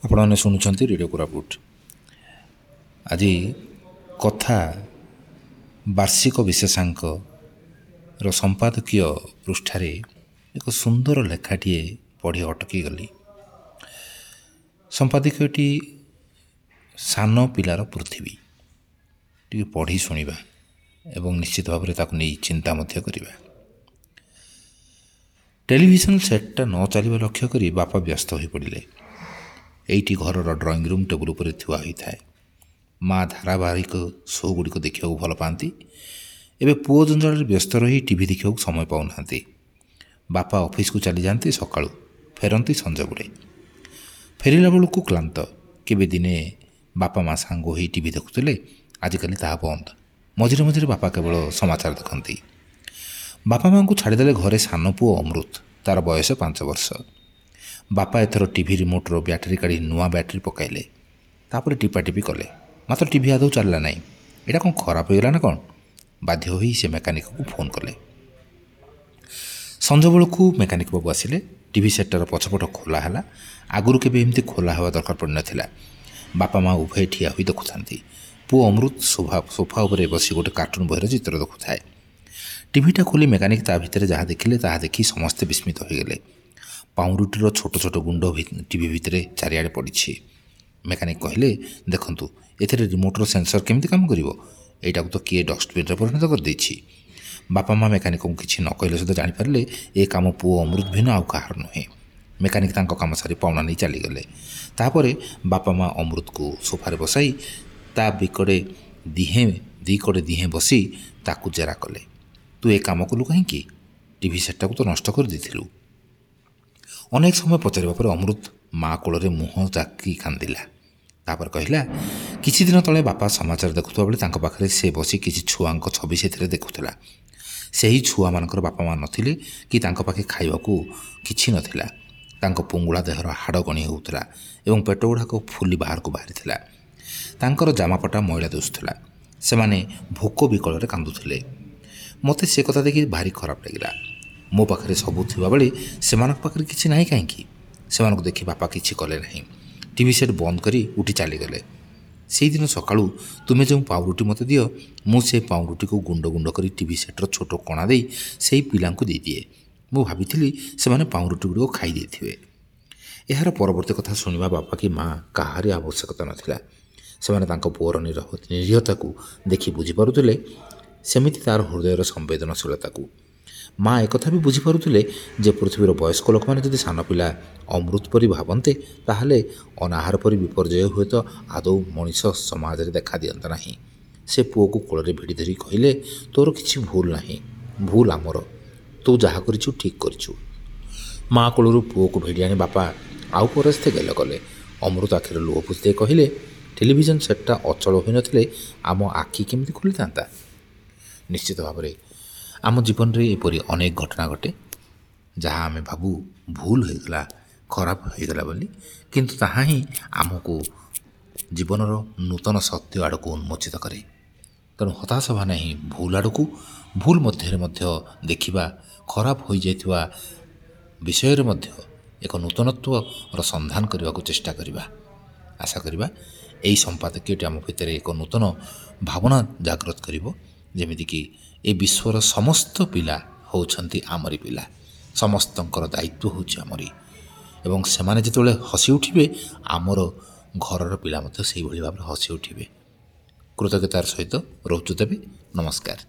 ଆପଣମାନେ ଶୁଣୁଛନ୍ତି ରେଡ଼ିଓ କୋରାପୁଟ। ଆଜି କଥା ବାର୍ଷିକ ବିଶେଷାଙ୍କର ସମ୍ପାଦକୀୟ ପୃଷ୍ଠାରେ ଏକ ସୁନ୍ଦର ଲେଖାଟିଏ ପଢ଼ି ଅଟକି ଗଲି। ସମ୍ପାଦକୀୟଟି ସାନ ପିଲାର ପୃଥିବୀ। ଟିକେ ପଢ଼ି ଶୁଣିବା ଏବଂ ନିଶ୍ଚିତ ଭାବରେ ତାକୁ ନେଇ ଚିନ୍ତା ମଧ୍ୟ କରିବା। ଟେଲିଭିଜନ ସେଟ୍ଟା ନ ଚାଲିବା ଲକ୍ଷ୍ୟ କରି ବାପା ବ୍ୟସ୍ତ ହୋଇପଡ଼ିଲେ। ଏଇଟି ଘରର ଡ୍ରଇଂ ରୁମ୍ ଟେବୁଲ୍ ଉପରେ ଥୁଆ ହୋଇଥାଏ। ମା ଧାରାବାହିକ ଶୋ ଗୁଡ଼ିକ ଦେଖିବାକୁ ଭଲ ପାଆନ୍ତି। ଏବେ ପୁଅ ଜଞ୍ଜାଳରେ ବ୍ୟସ୍ତ ରହି ଟିଭି ଦେଖିବାକୁ ସମୟ ପାଉନାହାନ୍ତି। ବାପା ଅଫିସକୁ ଚାଲିଯାଆନ୍ତି ସକାଳୁ, ଫେରନ୍ତି ସଞ୍ଜବେଳେ। ଫେରିଲା ବେଳକୁ କ୍ଳାନ୍ତ। କେବେ ଦିନେ ବାପା ମା ସାଙ୍ଗ ହୋଇ ଟିଭି ଦେଖୁଥିଲେ, ଆଜିକାଲି ତାହା ବନ୍ଦ। ମଝିରେ ମଝିରେ ବାପା କେବଳ ସମାଚାର ଦେଖନ୍ତି। ବାପା ମାଆଙ୍କୁ ଛାଡ଼ିଦେଲେ ଘରେ ସାନ ପୁଅ ଅମୃତ। ତା'ର ବୟସ 5 ବର୍ଷ। ବାପା ଏଥର ଟିଭି ରିମୋଟ୍ର ବ୍ୟାଟେରୀ କାଢ଼ି ନୂଆ ବ୍ୟାଟେରୀ ପକାଇଲେ। ତାପରେ ଟିପାଟିପି କଲେ, ମାତ୍ର ଟିଭି ଆଦୌ ଚାଲିଲା ନାହିଁ। ଏଇଟା କ'ଣ ଖରାପ ହୋଇଗଲା ନା କ'ଣ? ବାଧ୍ୟ ହୋଇ ସେ ମେକାନିକକୁ ଫୋନ୍ କଲେ। ସଞ୍ଜବେଳକୁ ମେକାନିକ ବାବୁ ଆସିଲେ। ଟିଭି ସେଟ୍ଟାର ପଛପଟ ଖୋଲା ହେଲା। ଆଗରୁ କେବେ ଏମିତି ଖୋଲା ହେବା ଦରକାର ପଡ଼ିନଥିଲା। ବାପା ମା ଉଭୟ ଠିଆ ହୋଇ ଦେଖୁଥାନ୍ତି। ପୁଅ ଅମୃତ ସୋଫା ଉପରେ ବସି ଗୋଟେ କାର୍ଟୁନ୍ ବହିର ଚିତ୍ର ଦେଖୁଥାଏ। ଟିଭିଟା ଖୋଲି ମେକାନିକ ତା ଭିତରେ ଯାହା ଦେଖିଲେ, ତାହା ଦେଖି ସମସ୍ତେ ବିସ୍ମିତ ହୋଇଗଲେ। ପାଉଁରୁଟିର ଛୋଟ ଛୋଟ ଗୁଣ୍ଡ ଟିଭି ଭିତରେ ଚାରିଆଡ଼େ ପଡ଼ିଛି। ମେକାନିକ କହିଲେ, ଦେଖନ୍ତୁ, ଏଥିରେ ରିମୋଟ୍ର ସେନ୍ସର କେମିତି କାମ କରିବ? ଏଇଟାକୁ ତ କିଏ ଡଷ୍ଟବିନ୍ରେ ପରିଣତ କରିଦେଇଛି। ବାପା ମା ମେକାନିକଙ୍କୁ କିଛି ନ କହିଲେ ସୁଦ୍ଧା ଜାଣିପାରିଲେ, ଏ କାମ ପୁଅ ଅମୃତ ଭିନ୍ନ ଆଉ କାହାର ନୁହେଁ। ମେକାନିକ ତାଙ୍କ କାମ ସାରି ପାଉଣା ନେଇ ଚାଲିଗଲେ। ତାପରେ ବାପା ମା ଅମୃତକୁ ସୋଫାରେ ବସାଇ ତା ବିକଡ଼େ ଦିହେଁ ଦି କଡ଼େ ଦିହେଁ ବସି ତାକୁ ଜେରା କଲେ। ତୁ ଏ କାମ କଲୁ କାହିଁକି? ଟିଭି ସେଟ୍ଟାକୁ ତ ନଷ୍ଟ କରିଦେଇଥିଲୁ। ଅନେକ ସମୟ ପଚାରିବା ପରେ ଅମୃତ ମା କୋଳରେ ମୁହଁ ଜାକି କାନ୍ଦିଲା। ତାପରେ କହିଲା, କିଛି ଦିନ ତଳେ ବାପା ସମାଚାର ଦେଖୁଥିବା ବେଳେ ତାଙ୍କ ପାଖରେ ସେ ବସି କିଛି ଛୁଆଙ୍କ ଛବି ସେଥିରେ ଦେଖୁଥିଲା। ସେହି ଛୁଆମାନଙ୍କର ବାପା ମା ନଥିଲେ କି ତାଙ୍କ ପାଖେ ଖାଇବାକୁ କିଛି ନଥିଲା। ତାଙ୍କ ପୁଙ୍ଗୁଳା ଦେହର ହାଡ଼ ଗଣି ହେଉଥିଲା ଏବଂ ପେଟ ଗୁଡ଼ାକ ଫୁଲି ବାହାରକୁ ବାହାରିଥିଲା। ତାଙ୍କର ଜାମାପଟା ମଇଳା ଦିଶୁଥିଲା। ସେମାନେ ଭୋକ ବିକଳରେ କାନ୍ଦୁଥିଲେ। ମୋତେ ସେ କଥା ଦେଖି ଭାରି ଖରାପ ଲାଗିଲା। ମୋ ପାଖରେ ସବୁ ଥିବାବେଳେ ସେମାନଙ୍କ ପାଖରେ କିଛି ନାହିଁ କାହିଁକି? ସେମାନଙ୍କୁ ଦେଖି ବାପା କିଛି କଲେ ନାହିଁ। ଟିଭି ସେଟ୍ ବନ୍ଦ କରି ଉଠି ଚାଲିଗଲେ। ସେଇଦିନ ସକାଳୁ ତୁମେ ଯେଉଁ ପାଉରୁଟି ମୋତେ ଦିଅ, ମୁଁ ସେ ପାଉରୁଟିକୁ ଗୁଣ୍ଡ ଗୁଣ୍ଡ କରି ଟିଭି ସେଟ୍ର ଛୋଟ କଣା ଦେଇ ସେଇ ପିଲାଙ୍କୁ ଦେଇଦିଏ। ମୁଁ ଭାବିଥିଲି ସେମାନେ ପାଉରୁଟି ଗୁଡ଼ିକ ଖାଇ ଦେଇଥିବେ। ଏହାର ପରବର୍ତ୍ତୀ କଥା ଶୁଣିବା ବାପା କି ମା କାହାରି ଆବଶ୍ୟକତା ନଥିଲା। ସେମାନେ ତାଙ୍କ ପୁଅର ନିରୀହତାକୁ ଦେଖି ବୁଝିପାରୁଥିଲେ, ସେମିତି ତା'ର ହୃଦୟର ସମ୍ବେଦନଶୀଳତାକୁ। ମା ଏକଥା ବି ବୁଝିପାରୁଥିଲେ ଯେ ପୃଥିବୀର ବୟସ୍କ ଲୋକମାନେ ଯଦି ସାନ ପିଲା ଅମୃତ ପରି ଭାବନ୍ତେ, ତାହେଲେ ଅନାହାର ପରି ବିପର୍ଯ୍ୟୟ ହୁଏତ ଆଦୌ ମଣିଷ ସମାଜରେ ଦେଖା ଦିଅନ୍ତା ନାହିଁ। ସେ ପୁଅକୁ କୋଳରେ ଭିଡ଼ି ଧରି କହିଲେ, ତୋର କିଛି ଭୁଲ ନାହିଁ, ଭୁଲ ଆମର। ତୁ ଯାହା କରିଛୁ ଠିକ୍ କରିଛୁ। ମା କୋଳରୁ ପୁଅକୁ ଭିଡ଼ି ଆଣି ବାପା ଆଉ ପରସ୍ତେ ଗେଲ କଲେ। ଅମୃତ ଆଖିରେ ଲୁହ ପୋଛି ଦେଇ କହିଲେ, ଟେଲିଭିଜନ ସେଟ୍ଟା ଅଚଳ ହୋଇନଥିଲେ ଆମ ଆଖି କେମିତି ଖୋଲିଥାନ୍ତା? ନିଶ୍ଚିତ ଭାବରେ ଆମ ଜୀବନରେ ଏପରି ଅନେକ ଘଟଣା ଘଟେ, ଯାହା ଆମେ ଭାବୁ ଭୁଲ ହୋଇଗଲା, ଖରାପ ହୋଇଗଲା ବୋଲି, କିନ୍ତୁ ତାହା ହିଁ ଆମକୁ ଜୀବନର ନୂତନ ସତ୍ୟ ଆଡ଼କୁ ଉନ୍ମୋଚିତ କରେ। ତେଣୁ ହତାଶ ହେବା ନାହିଁ ଭୁଲ ଆଡ଼କୁ। ଭୁଲ ମଧ୍ୟରେ ମଧ୍ୟ ଦେଖିବା, ଖରାପ ହୋଇଯାଇଥିବା ବିଷୟରେ ମଧ୍ୟ ଏକ ନୂତନତ୍ୱର ସନ୍ଧାନ କରିବାକୁ ଚେଷ୍ଟା କରିବା। ଆଶା କରିବା ଏହି ସମ୍ପାଦକୀୟଟି ଆମ ଭିତରେ ଏକ ନୂତନ ଭାବନା ଜାଗ୍ରତ କରିବ, ଯେମିତିକି ଏ ବିଶ୍ୱର ସମସ୍ତ ପିଲା ହେଉଛନ୍ତି ଆମରି ପିଲା, ସମସ୍ତଙ୍କର ଦାୟିତ୍ୱ ହେଉଛି ଆମରି, ଏବଂ ସେମାନେ ଯେତେବେଳେ ହସି ଉଠିବେ, ଆମର ଘରର ପିଲା ମଧ୍ୟ ସେଇଭଳି ଭାବରେ ହସି ଉଠିବେ। କୃତଜ୍ଞତାର ସହିତ ରହୁଛୁ ତେବେ, ନମସ୍କାର।